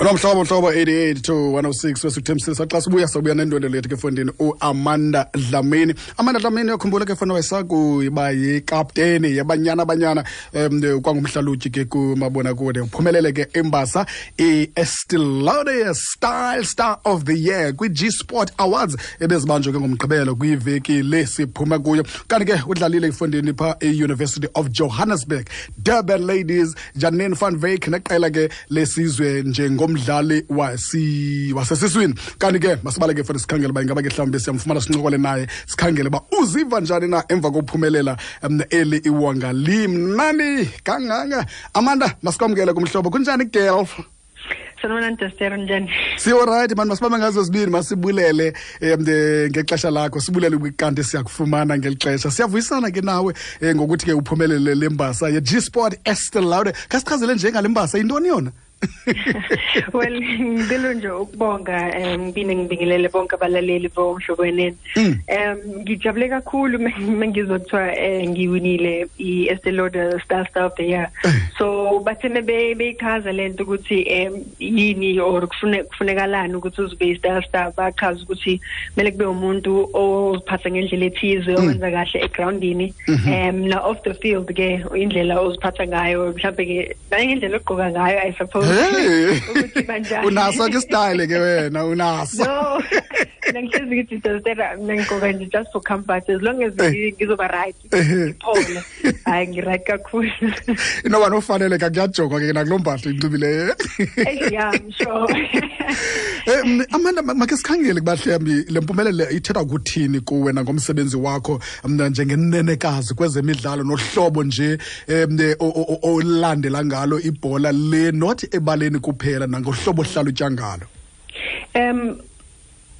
Nomhlobo mhlobo 88 to 106 wesikuthembisisa xa sibuya sobuya nendwendwe lethu ke fondini uAmanda Dlamini. Amanda Dlamini uyakhumbula ke fona wayesakuba yikapteni yaBanyana Banyana kwangumhlalutyi ke kumabonakude. Uphumelele ke imbasa i-Estee Lauder Style Star of the Year kwi-G Sport Awards ebezibanjwe ke ngoMgqibelo kwiveki le siphuma kuyo. Kanti ke udlalile efondini pha e-University of Johannesburg, Durban Ladies, Janine van Wyk neqela ke lesizwe njengomdlali wasesiswini. Kanti ke masibaleke fona sikhangele uba ingaba ke mhlawumbi siyamfumana sincokole naye, sikhangele uba uziva njani na emva kokuphumelela eli iwonga limnandi kangaka. Amanda, masikwamkele kumhlobo. Kunjani, girl? Sanibonani Dester, njani? Siyorayithi mani, masibambe ngazo zibini, masibulele ngexesha lakho, sibulele kanti siyakufumana ngeli xesha. Siyavuyisana ke nawe ngokuthi ke uphumelele le mbasa ye-G-Sport Estee Lauder. Khasichazele nje ngale mbasa, yintoni yona? Well, ngicela nje ukubonga, ngibine ngibingelele bonke abalaleli boMhlobo Wenene. Ngijabule kakhulu mengizwa kuthiwa ngiwinile i-Estee Lauder Star of the Year. So bathe beyichaza lento ukuthi yini or kufunekalani ukuthi uzibe i-Style Star, bachaza ukuthi kumele kube umuntu oziphatha ngendlela ethize, owenza kahle egroundini, na off the field ke indlela oziphatha ngayo, mhlawumbe ke nangendlela ogqoka ngayo, I suppose. Hey. Ukuthi banjani. Unaso ke style ke wena, unaso. No, mina ngihlezi ngithi Dester, mina ngigqoka nje just for comfort, as long as ngizoba right, ngiphole, hayi, ngi-right kakhulu. Inoba nofanele kakuyajongwa ke nakuloo mpahla inxibileyo. Yeah, I'm sure. Amanda, makhe sikhangele kuba mhlawumbi le mpumelelo ithetha kuthini kuwe nangomsebenzi wakho mna njengenenekazi kwezemidlalo nohlobo nje olandela ngalo ibhola le, not ebaleni kuphela, nangohlobo ohlalutya ngalo.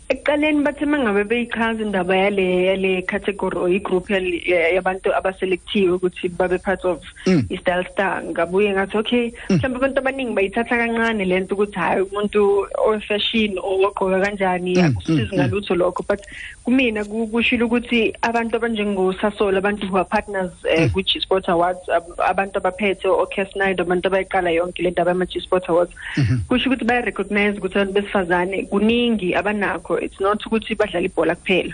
Ekuqaleni bathe mangabe beyichaza indaba yale category or igroup yabantu abaselectiwe ukuthi babe part of i-Style Star, ngabuye ngathi okay, mhlawumbe abantu abaningi bayithatha kancane lento ukuthi hayi, umuntu o-fashion ogqoka kanjani, akusizi ngalutho lokho. But kumina kushilo ukuthi abantu abanjengoSasol, abantu who are partners kwi-G Sport Awards, abantu abaphethe o-Cas Snyder, abantu abayiqala yonke le ndaba yama-G Sport Awards, kusho ukuthi baya-recognize ukuthi abantu besifazane kuningi abanakho. It's not ukuthi badlala ibhola kuphela.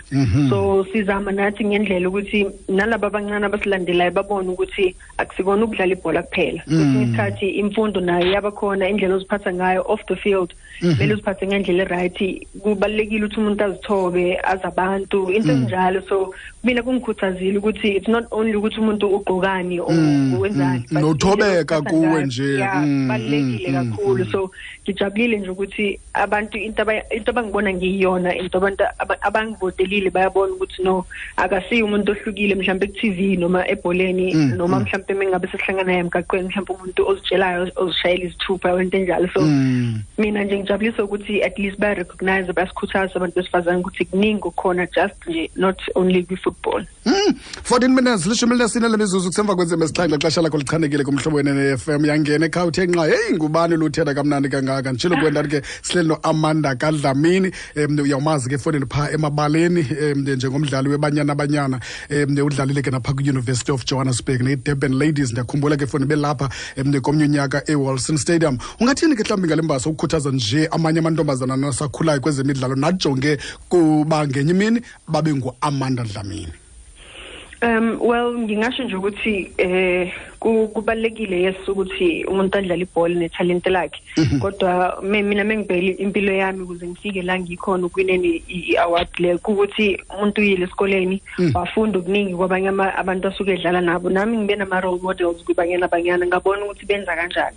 So sizama nathi ngendlela ukuthi nalaba abancane abasilandelayo babone ukuthi akusikona ukudlala ibhola kuphela. Kwesinye isikhathi imfundo nayo yabakhona, indlela oziphatha ngayo off the field, kumele uziphathe ngendlela e-right. Kubalulekile ukuthi umuntu azithobe, azi abantu, into ezinjalo. So mina kungikhuthazile ukuthi it's not only ukuthi umuntu ugqokani or wenzani, but Nothobeka indlela oziphatha kuwe ngayo. nje. Yeah, kubalulekile kakhulu. So ngijabulile nje ukuthi abantu into abangibona ngiyiyona, into abantu abangivotelile bayabona ukuthi no, akasiyo umuntu ohlukile mhlawumbe ku-TV noma ebholeni, noma mhlawumbe mengabe sesihlangana naye emgaqweni, mhlawumbe umuntu ozitshelayo, ozishayela izithupha, into enjalo. So mina nje ngijabulisa ukuthi at least baya-recognize, bayasikhuthaza abantu besifazane ukuthi kuningi okukhona, just nje not only kwi-football. 14 minutes, 14 lemizuzu kusemva kwentsimbi 7. Xesha lakho lichanekile kuMhlobo Wenene FM. Yangena ekhaya uthe nqa, heyi, ngubani luthetha kamnandi kangaka? Nditshilo kuwe ndathi ke sihleli noAmanda kaDlamini. Uyawumazi ke efowunini phaa emabaleni njengomdlali weBanyana Banyana. Udlalile ke naphaa kwi-University of Johannesburg ne-Durban Ladies. Ndiyakhumbula ke efowunini belapha komnye unyaka eWilson Stadium. Ungathini ke mhlawumbi ngale mbasa ukukhuthaza nje amanye amantombazana nasakhulayo kwezemidlalo najonge kuba ngenye imini babe nguAmanda Dlamini? Well, ngingasho nje ukuthi kubalekile, yes, ukuthi umuntu adlale ibhola nethalente lakhe. Kodwa mina mengibheka impilo yami ukuze ngifike la ngikhona ukwineni i-award le, ukuthi umuntu uyile esikoleni, wafunda okuningi kwabanye abantu asuke edlala nabo. Nami ngibe nama role models kuBanyana Banyana, ngabona ukuthi benza kanjani.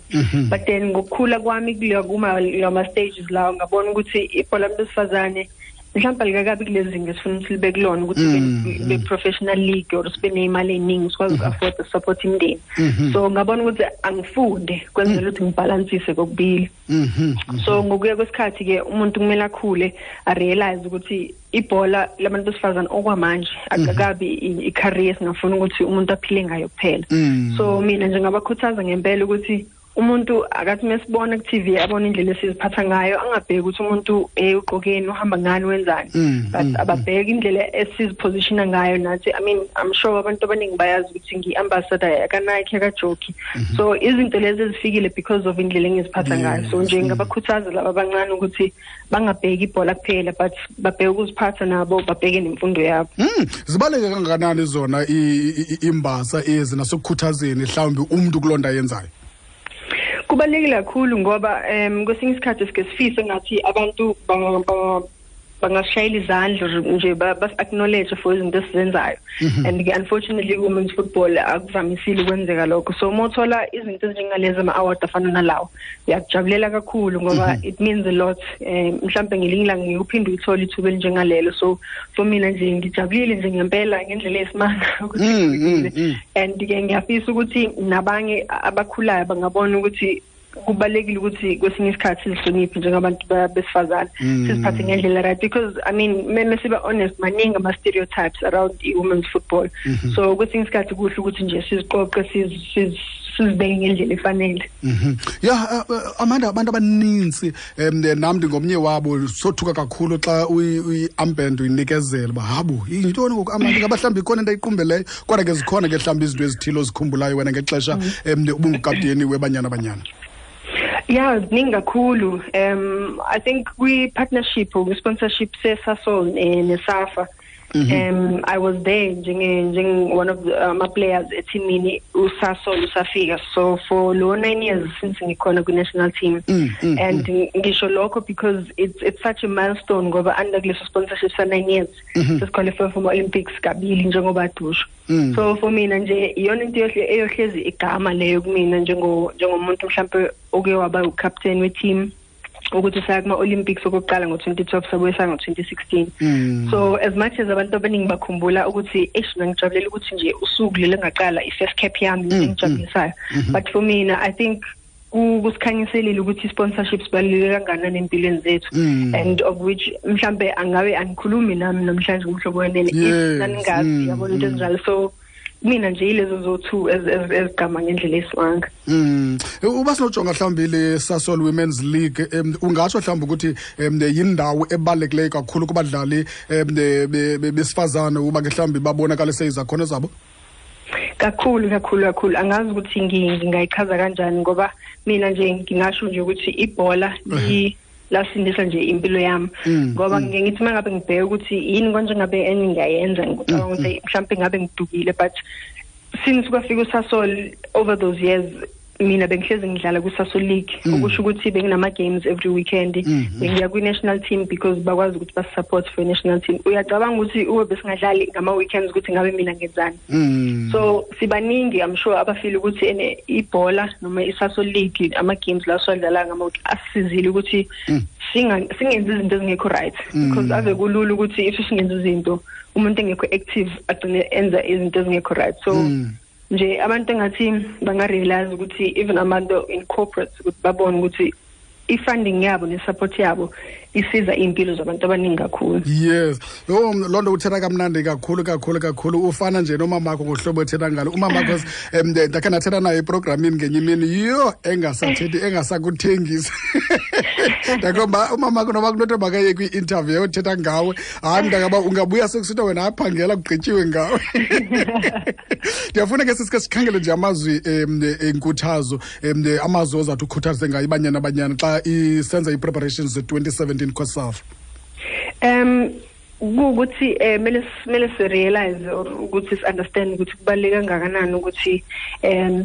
But then ngokukhula kwami kuleyo kuma lama stages lawo, ngabona ukuthi ibhola besifazane mhlawumbe alikakabi kulezi zinga esifuna ukuthi libe kulona, ukuthi be professional league or sibe neyimali eningi sikwazi uku-afford support imindeni. So ngabona ukuthi angifunde kwenzela ukuthi ngibalansise kokubili. So ngokuya kwesikhathi ke umuntu kumele akhule, a-realize ukuthi ibhola labantu besifazane okwamanje akakabi i-career singafuna ukuthi umuntu aphile ngayo kuphela. So mina nje ngabakhuthaza ngempela ukuthi Umuntu akathi mesibona ku TV abona indlela esiziphatha ngayo, angabheki ukuthi umuntu ugqokeni, uhamba ngani, wenzani, but ababheki indlela esizipositiona ngayo nathi. I mean, I'm sure abantu abaningi bayazi ukuthi ngi-ambassador ka Nike, ka Jockey, so izinto lezi ezifikile because of indlela engiziphatha ngayo. So nje ngabakhuthaza laba abancane ukuthi bangabheki ibhola kuphela, but babheke ukuziphatha nabo, babheke nemfundo yabo. Zibaleke kangakanani zona imbasa ezi nasekukhuthazeni mhlawumbi umuntu kulonda yenzayo? Kubalulekile kakhulu ngoba kwesinye isikhathi sike sifise ngathi abantu bangashayela izandla nje, bas-acknowledge for izinto esizenzayo, and unfortunately women's football akuvamisile ukwenzeka lokho. So uma uthola izinto ezinjengalezi, ama-award afana nalawo, uyakujabulela kakhulu ngoba it means a lot. Mhlampe ngelinye ilanga ngikuphinde uyithole ithuba elinjengalelo. So for mina nje ngijabulile nje ngempela ngendlela esimanga ukuthi, and-ke ngiyafisa ukuthi nabanye abakhulayo bangabona ukuthi kubalulekile ukuthi kwesinye isikhathi sizihloniphe njengabantu besifazane, siziphathe ngendlela right, because I mean, mesiba honest, maningi ama-stereotypes around i-women's football. So kwesinye isikhathi kuhle ukuthi nje siziqoqe, sizibeke ngendlela efanele. Yeah, Amanda, abantu abaninzi, nam ndingomnye wabo, sothuka kakhulu xa uyi-armband uyinikezela uba habo, yintoni ngoku Amanda, ingaba mhlawumbi ikhona into ayiqumbeleyo? Kodwa ke zikhona ke mhlawumbi izinto ezithile ozikhumbulayo wena ngexesha ubungukapteni weBanyana Banyana? Yeah, ziningi kakhulu. I think kwi-partnership or sponsorship seSasol neSAFA, I was there njenge one of the my players eteamini uSasol usafika. So for lo 9 years since ngikhona ku national team, and ngisho lokho because it's such a milestone ngoba under kuleso sponsorship sa 9 years sesiqualify for Olympics kabili njengoba dusho. So for mina nje iyona into eyohlezi igama leyo kumina njengomuntu mhlambe oke waba ucaptain we-team, ukuthi saya kuma-Olympics okokuqala ngo-2012, sabuye saya ngo-2016. So as much as abantu abaningi bakhumbula ukuthi eish, ngijabulela ukuthi nje usuku leli ngaqala i-first cap yami, engijabulisayo, but for mina I think kusikhanyiselile ukuthi i-sponsorship sibaluleke kangakanani empilweni zethu, and of which mhlambe angabe angikhulumi nami namhlanje kuMhlobo Wenene if naningazi, yabona, into ezinjalo. So mina nje yilezo zo-two ezigama ngendlela esimanga. Uba sinojonga mhlawumbi le Sasol Women's League, ungatsho mhlawumbi ukuthi yindawo ebalulekileyo kakhulu kubadlali besifazane uba ke mhlawumbi babonakalise izakhono zabo? Kakhulu, kakhulu, kakhulu. Angazi ukuthi ngingayichaza kanjani ngoba mina nje ngingasho nje ukuthi ibhola lasindisa nje impilo yami, ngoba ngike ngithi uma ngabe ngibheka ukuthi yini konje ngabe enye ngiyayenza, ngicabanga ukuthi mhlawumbe ngabe ngidukile, but since kwafika uSasol over those years, mina bengihlezi ngidlala ku-Sasol League, okusho ukuthi benginama games every weekend, bengiya kwi-national team because bakwazi ukuthi basi-support for i-national team. Uyacabanga ukuthi ube besingadlali ngama-weekends ukuthi ngabe mina ngenzani? So sibaningi, I'm sure, abafile ukuthi ene ibhola noma i-Sasol League, ama-games la siwadlala ngama asisizile ukuthi singenzi izinto ezingekho right, because ave kulula ukuthi if singenza izinto, umuntu engekho active agcine enza izinto ezingekho right. So nje abantu engathi banga-realize ukuthi even abantu in corporate, ukuthi babone ukuthi i-funding yabo ne-support yabo isiza iy'mpilo zabantu abaningi kakhulu. Yes, yho, loo nto uthetha kamnandi kakhulu, kakhulu, kakhulu. Ufana nje nomamakho ngohlobo ethetha ngalo. Umamakho ndakhe ndathetha naye eprogramini ngenye imini, yho, engasathethi, engasakuthengisi. Ndakomba umamakho noba kunothi makaye kwi-interview othetha ngawe, hayi mntakaba, ungabuya sekusithiwa wena aphangela, kugqityiwe ngawe. Ndiyafuna ke sisike sikhangele nje amazwi enkuthazo, amazwi ozawuthi ukhuthaze ngayo iBanyana Banyana xa isenza ii-preparations ze-2017 COSAFA. Kuwukuthi mele si-realize or ukuthi si-understand ukuthi kubaluleke kangakanani ukuthi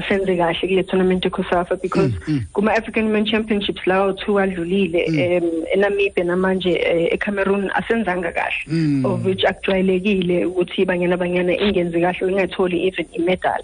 senze kahle kule tournament eCOSAFA, because kuma-African Women Championships lawo two adlulile, eNamibia namanje eCameroon, asenzanga kahle, of which akujwayelekile ukuthi iBanyana Banyana ingenzi kahle, ingatholi even i-medal.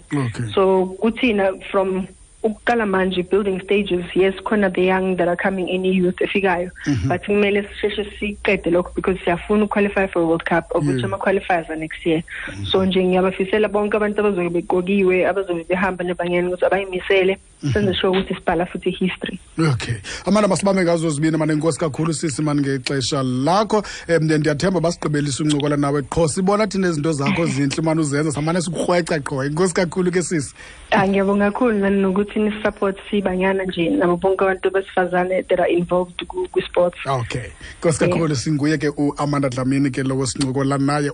So kuthina from ukuqala manje, building stages, yes, khona the young that are coming in, youth efikayo, but kumele sisheshe siqede lokho because siyafuna uqualify for World Cup, of which ama-qualifiers are next year. So nje ngiyabafisela bonke abantu abazobe beqokiwe, abazobe behamba neBanyana, ukuthi abayimisele. Senze sure ukuthi sibhala futhi history. Okay, Amanda, masibambe ngazo zibini mane. Inkosi kakhulu sisi mani ngexesha lakho. Ndiyathemba basigqibelisa uncokola nawe qho, sibona thina izinto zakho zintle mani uzenza, samane sikurhweca qho. Inkosi kakhulu ke sisi. Ah, ngiyabonga kakhulu nani nokuthi ni-support sibanyana nje nabo bonke abantu besifazane that are involved ku-sports. Okay, nkosi kakhulu. Singuye ke uAmanda Dlamini ke lowo sincokola naye.